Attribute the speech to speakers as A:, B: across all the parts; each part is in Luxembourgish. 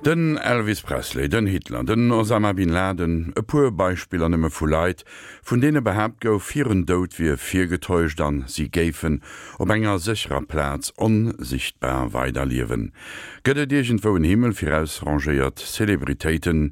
A: Den Elvis Presley, den Hitler, den Osama Bin Laden, e puer Beispiller nëmme vu Leit, vun deene behaapt gouf, hiren Doud wier virgetäuscht an si géifen op enger sécherer Plaz onsichtbar weiderliewen. Gëtt et iergendwou en Himmel fir ausrangéiert Celebritéiten?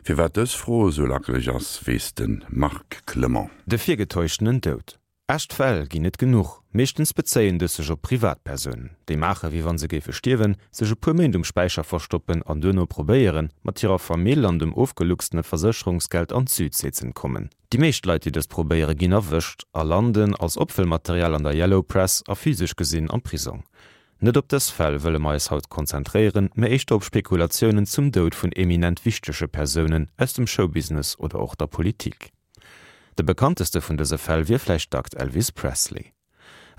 A: Firwat dës Fro esou lackeleg ass, weess de Marc Clement.
B: De virgetäuschtenen Doud. Echt Fäll ginn et genuch. Meeschtens bezéien dës sech op Privatpersounen, déi maache wéi wann se géife stierwen, sech e puer Méint um Späicher verstoppen an duerno probéieren, mat hirer Famill an dem ofgeluchstene Versécherungsgeld an d'Südsee z'entkommen. Déi meescht Leit, déi dëst probéiere ginn erwëscht a landen als Opfëllmaterial an der Yellow Press a physesch gesinn am Prisong. Net op dës Fäll wëlle mer eis haut konzentréieren, mä éischter op Spekulatiounen zum Doud vun eminent wichtege Persounen aus dem Showbusiness oder och der Politik. De bekannteste vun dëse Fäll wier vläicht dackt Elvis Presley.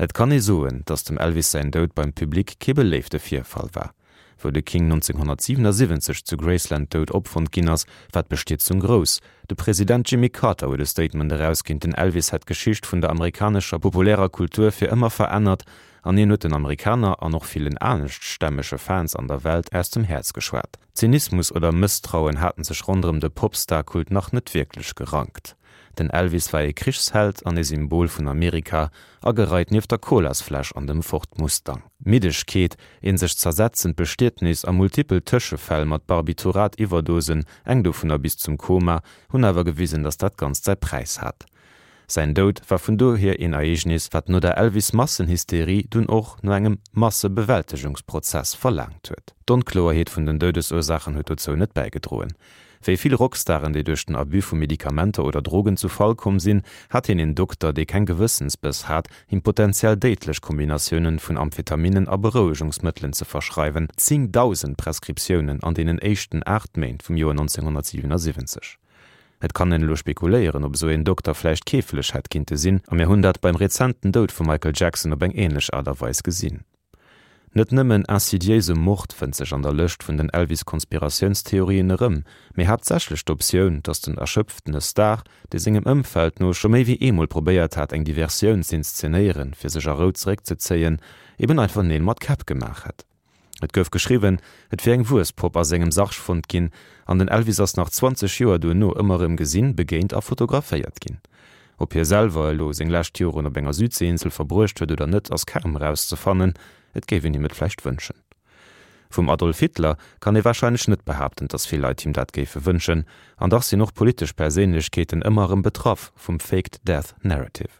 B: Et kann ee soen, datt dem Elvis säin Doud beim Public kee beléifte Virfall war. Wou de King 1977 zu Graceland dout opfonnt ginn ass, war d'Bestierzung grouss. De President Jimmy Carter huet e Statement erausginn, den Elvis hätt d'Geschicht vun der amerikanescher populärer Kultur fir ëmmer verännert an hien huet den Amerikaner an och villen aneschtstämmege Fans an der Welt aus dem Häerz geschwat. Zynismus oder Mësstrauen haten sech ronderëm de Popstar-Kult nach net wierklech gerankt. Den Elvis war ee Krichsheld an ee Symbol vun Amerika, agereit nieft der Colasfläsch an dem Ford Mustang. Middegkeet, een sech zersetzend Bestietnis a multipel Tëschefäll mat Barbiturat-Iwwerdosen, eng dovunner bis zum Koma, hunn awer gewisen, datt dat Ganzt säi Präis hat. Säin Doud war vun dohier een Ereegnis, wat no der Elvis-Massenhysterie dunn och no engem Massebewältegungsprozess verlaangt huet. D'Onkloerheet vun den Doudesursaachen huet dozou net bäigedroen. Wéi vill Rockstaren, déi duerch den Abus vu Medikamenter oder Drogen zu Fall komm sinn, hat hien een Dokter, dee keng Gewëssensbëss hat, him potentiell déidlech Kombinatiounen vun Amphetaminen a Berouegungsmëttelen ze verschreiwen, 10.000 Prescriptiounen an deenen éischten 8 Méint vum Joer 1977. Et kann een elo spekuléieren, ob esou een Dokter vläicht keeflech hätt kinnte sinn, a mir hunn dat beim rezenten Doud vum Michael Jackson op eng ähnlech Aart a Weis gesinn. Net nëmmen insidiéise Mord fënnt sech an der Lëscht vun den Elvis-Konspiratiounstheorien erëm, mee haaptsächlech d'Optioun, datt den erschöpftene Star, dee sengem Ëmfeld no scho méi wéi eemol probéiert hat, eng Diversioun z'inszenéieren, fir sech a Rou zeréckzezéien, eben einfach Neel mat Käpp gemaach hätt. Et gouf geschriwwen, et wier eng Wuesspopp a sengem Sarg fonnt ginn, an den Elvis ass nach 20 Joer duerno ëmmer erëm gesinn, begéint a fotograféiert ginn. Ob hie selwer elo seng lescht Joren op enger Südseeinsel verbruecht huet oder net, ass kaum erauszefannen, et géif een him et vläicht wënschen. Vum Adolf Hitler kann ee warscheinlech net behaapten, datt vill Leit him dat géife wënschen, an dach sinn och politesch Perséinlechkeeten ëmmer erëm betraff vum Faked Death Narrative.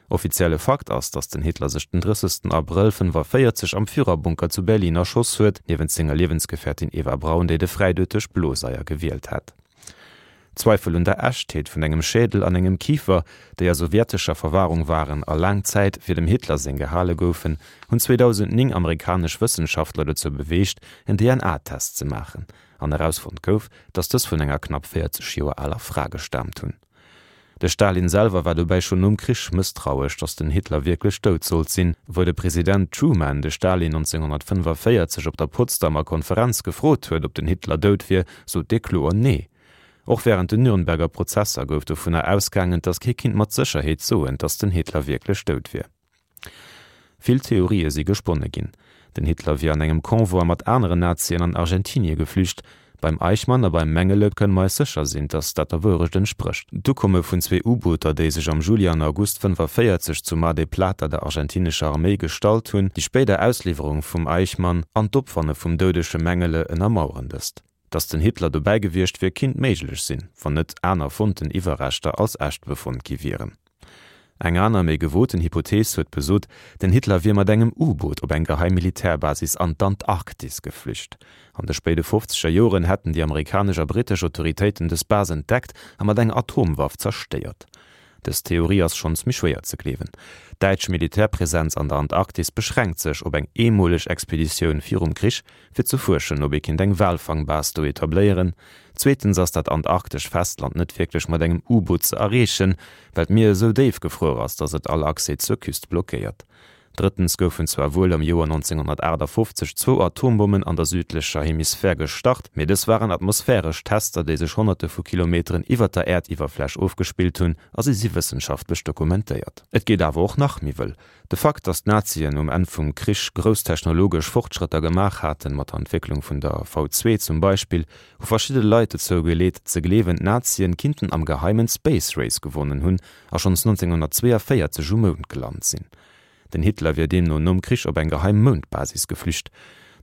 B: Offizielle Fakt ass, datt den Hitler sech den 30 Abrëll 45 am Führerbunker zu Berlin erschoss huet, niewent senger Liewensgefährtin Eva Braun, déi de Fräidoud duerch Bloseier gewielt hat. Zweifel un der Echtheet vun engem Schädel an engem Kifer, déi a sowjetescher Verwahrung waren a laang Zäit fir dem Hitler seng gehale goufen, hunn 2009 amerikanesch Wëssenschaftler dozou beweegt, en DNA-Test ze maachen, an erausfonnt gouf, datt dës vun enger knapp 40 Joer aler Fra gestaamt hunn. De Stalin selwer war dobäi schonn nom Krich mësstrauesch, datt den Hitler wierklech dout sollt sinn. Wou de President Truman de Stalin 1945 op der Potsdamer Konferenz gefrot huet, ob den Hitler dout wier, sot dee kloer Nee. Och wärend den Nürnberger Prozesser gouf dovunner ausgaangen, datt kee kinnt mat Sécherheet soen, datt den Hitler wierklech dout wier. Vill Theorië si gesponne ginn. Den Hitler wier an engem Convoi mat aneren Nazien an Argentinie geflücht. Beim Eichmann a beim Mengele kënne mer eis sécher sinn, datt dat der Wourecht entsprécht. D'Ukomme vun zwee U-Booter, déi sech am Juli an August 45 zu Mar del Plata der argentinescher Arméi gestallt hunn, déi spéider Ausliwwerung vum Eichmann an d'Opfanne vum doudege Mengele ënnermaueren dëst. Datt den Hitler dobäi gewiescht wier, kinnt méiglech sinn, wann net aner fonnten Iwwerreschter als echt befonnt gi wieren. Eng aner, méi gewoten Hypothees huet besot, den Hitler wier mat engem U-Boot op eng geheim Militärbasis an d'Antarktis geflücht. An de spéide fofzeger Joren hätten déi amerikanesch a brittesch Autoritéiten dës Base entdeckt a mat enger Atomwaff zerstéiert. Dës Theorie ass schonns méi schwéier ze gleewen. D'däitsch Militärpresenz an der Antarktis beschränkt sech op eng eemoleg Expeditioun virum Krich, fir ze fuerschen, ob ee kinnt eng Walfangbase do etabléieren. Zweetens ass dat antarktesch Festland net wierklech mat engem U-Boot ze erreechen, well d'Mier esou déif gefruer ass, datt et all Accès zur Küst blockéiert. Drëttens goufen zwar wuel am Joer 1958 zwou Atombommen an der südlecher Hemisphär gestart, mee dës waren atmosphäresch Tester, déi sech Honnerte vu Kilometeren iwwer der Äerdiwwerfläch ofgespillt hunn a si si wëssenschaftlech dokumentéiert. Et geet awer och nach méi wëll. De Fakt, datt d'Nazien um Enn vum Krich grouss technologesch Fortschrëtter gemaach haten, mat der Entwécklung vun der V2 zum Beispill, hu verschidde Leit dozou geleet ze gleewen, d'Nazien kinnten am Geheimen d'Space Race gewonnen hunn a schonns 1942 um Mound gelant sinn. Den Hitler wier deemno nom Krich op eng geheim Moundbasis geflücht.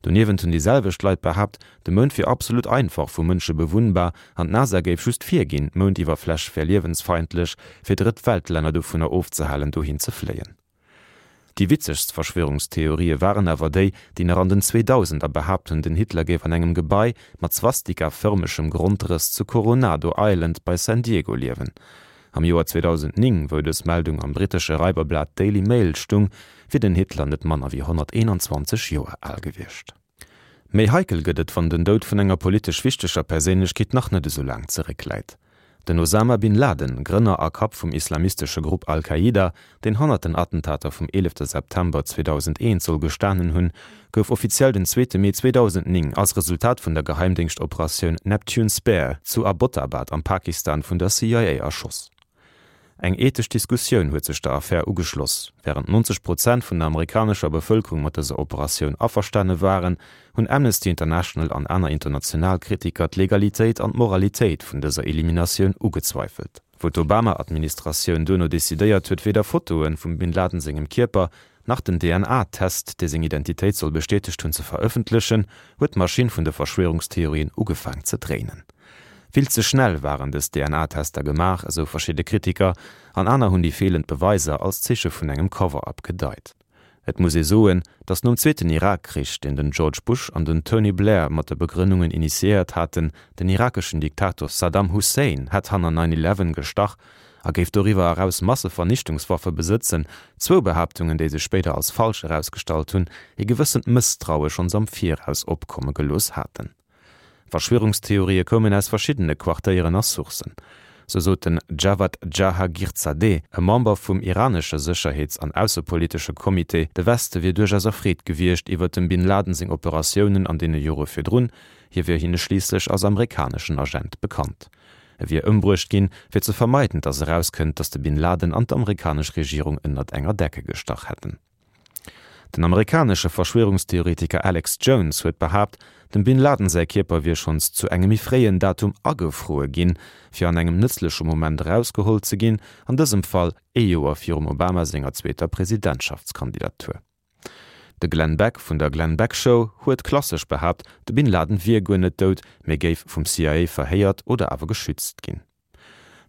B: Doniewent hunn déi selwecht Leit behaapt, de Mound wier absolut einfach vu Mënsche bewunnbar an d'NASA géif just virginn, d'Moundiwwerfläch wär liewensfeindlech, fir Drëtt-Welt-Länner dovunner ofzehalen, dohin ze fléien. Déi witzegst Verschwörungstheorië waren awer déi, déi nach an den Zweedausender behaapt hunn, den Hitler géif an engem Gebai mat Swastika-fërmegem Grondrëss zu Coronado Island bei San Diego liewen. Am Joer 2009, wou dës Meldung am brittesche Raiberblat Daily Mail stung, wier den Hitler net manner wéi 121 Joer al gewiescht. Méi heikel gëtt et, wann den Doud vun enger politesch wichteger Perséinlechkeet nach net esou laang zeréckläit. Den Osama Bin Laden, Grënner a Kapp vum islamistesche Grupp Al-Qaida, deen hannert den Attentater vum 11 September 2001 soll gestanen hunn, gouf offiziell den zweete Mee 2009 als Resultat vun der Geheimdéngschtoperatioun Neptune Spear zu Abbottabad am Pakistan vun der CIA erschoss. Eng ethesch Diskussioun huet sech der Affär ugeschloss. Wärend 90 Prozent vun der amerikanescher Bevëlkerung mat dëser Operatioun averstane waren, hunn Amnesty International an aner international Kritiker d'Legalitéit an d'Moralitéit vun dëser Eliminatioun ugezweifelt. Wou d'Obama-Administratioun duerno decidéiert huet, weder Fotoe vum Bin Laden sengem Kierper nach den DNA-Test, dee seng Identitéit soll bestätegt hunn, ze verëffentlechen, huet d'Maschinn vun de Verschwörungstheorien ugefaang ze dréinen. Vill ze schnell waren dës DNA-Tester gemaach, esou verschidde Kritiker, an aner hunn déi feelend Beweiser als Zeeche vun engem Cover-up gedeit. Et muss ee soen, datt nom zweeten Irak-Krich, deen den George Bush an den Tony Blair mat de Begrënnungen initiéiert haten, den irakeschen Diktator Saddam Hussein hätt hanner Nine Eleven gestach, a géif doriwwer eraus Massevernichtungswaffe besëtzen, zwou Behaaptungen, déi sech spéider als falsch erausgestallt hunn, ee gewëssent Mësstraue schonns am Viraus opkomme gelooss haten. Verschwörungstheorië koumen aus verschiddene Quartéieren a Sourcen. Sou sot den Javad Jahagirzadeh, e Member vum iranesche Sécherheets an aussepolitesche Comité, de Weste wier duerchaus erfreet gewiescht iwwer dem Bin Laden seng Operatiounen an deene Jore virdrun, hie wier hinne schliisslech als amerikaneschen Agent bekannt. E wier ëmbruecht ginn, fir ze vermeiden, datt erauskënnt, datt de Bin Laden an d'amerikanesch Regierung ënnert enger Decke gestach hätten. Den amerikanesche Verschwörungstheoretiker Alex Jones huet behaapt, dem Bin Laden säi Kierper wier schonns zu engem méi fréien Datum agefruer ginn, fir an engem nëtzleche Moment erausgeholl ze ginn, an dësem Fall ee Joer virum Obama senger zweeter Presidentschaftskandidatur. De Glenn Beck vun der Glenn Beck Show huet klassesch behaapt, de Bin Laden wier guer net dout, mee géif vum CIA verhéiert oder awer geschützt ginn.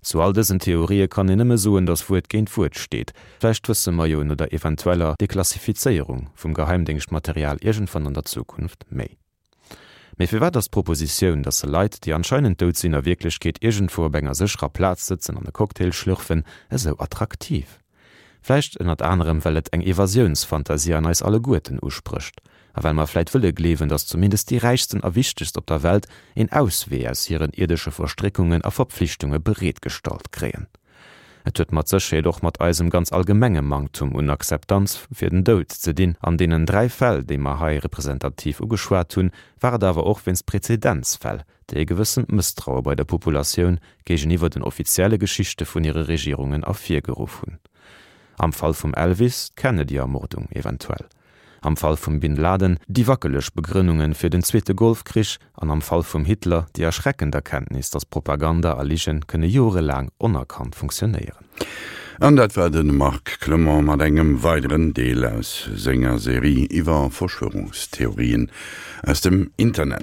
B: Zu all dësen Theorië kann een nëmme soen, datt Wuert géint Wuert steet. Vläicht wësse mer jo no der eventueller Deklassifizéierung vum Geheimdéngschtmaterial iergendwann an der Zukunft méi. Mee firwat ass d'Propositioun, dass se Leit, déi anscheinend dout sinn, a Wierklechkeet iergendwou op enger sécherer Plaz sëtzen an e Cocktail schlürfen, esou attraktiv? Vläicht ënnert anerem, well et eng Evasiounsfantasie an eis alleguerten usprécht. A well mer vläit wëlle gleewen, dass zumindest déi Räichsten a Wichtegst op der Welt een Auswee aus hiren ierdesche Verstréckungen a Verpflichtunge bereetgestallt kréien. Et huet mat Sécherheet och mat eisem ganz allgemenge Manktum un Akzeptanz fir den Doud ze dinn. An deenen 3 Fäll, déi mer hei representativ ugeschwat hunn, war et awer och wéinst Prezedenzfäll, déi e gewëssent Mësstraue bei der Populatioun géigeniwwer den offizielle Geschichte vun hire Regierungen ervirgeruff hunn. Am Fall vum Elvis d'Kennedy-Ermordung eventuell. Am Fall vum Bin Laden déi wackeleg Begrënnunge fir den zweete Golfkrich an am Fall vum Hitler déi erschreckend Erkenntnis, datt Propaganda a Ligen kënne jorelaang onerkannt funktionéieren.
A: An dat war de Marc Clement mat engem weideren Deel aus senger Serie iwwer Verschwörungstheorien aus dem Internet.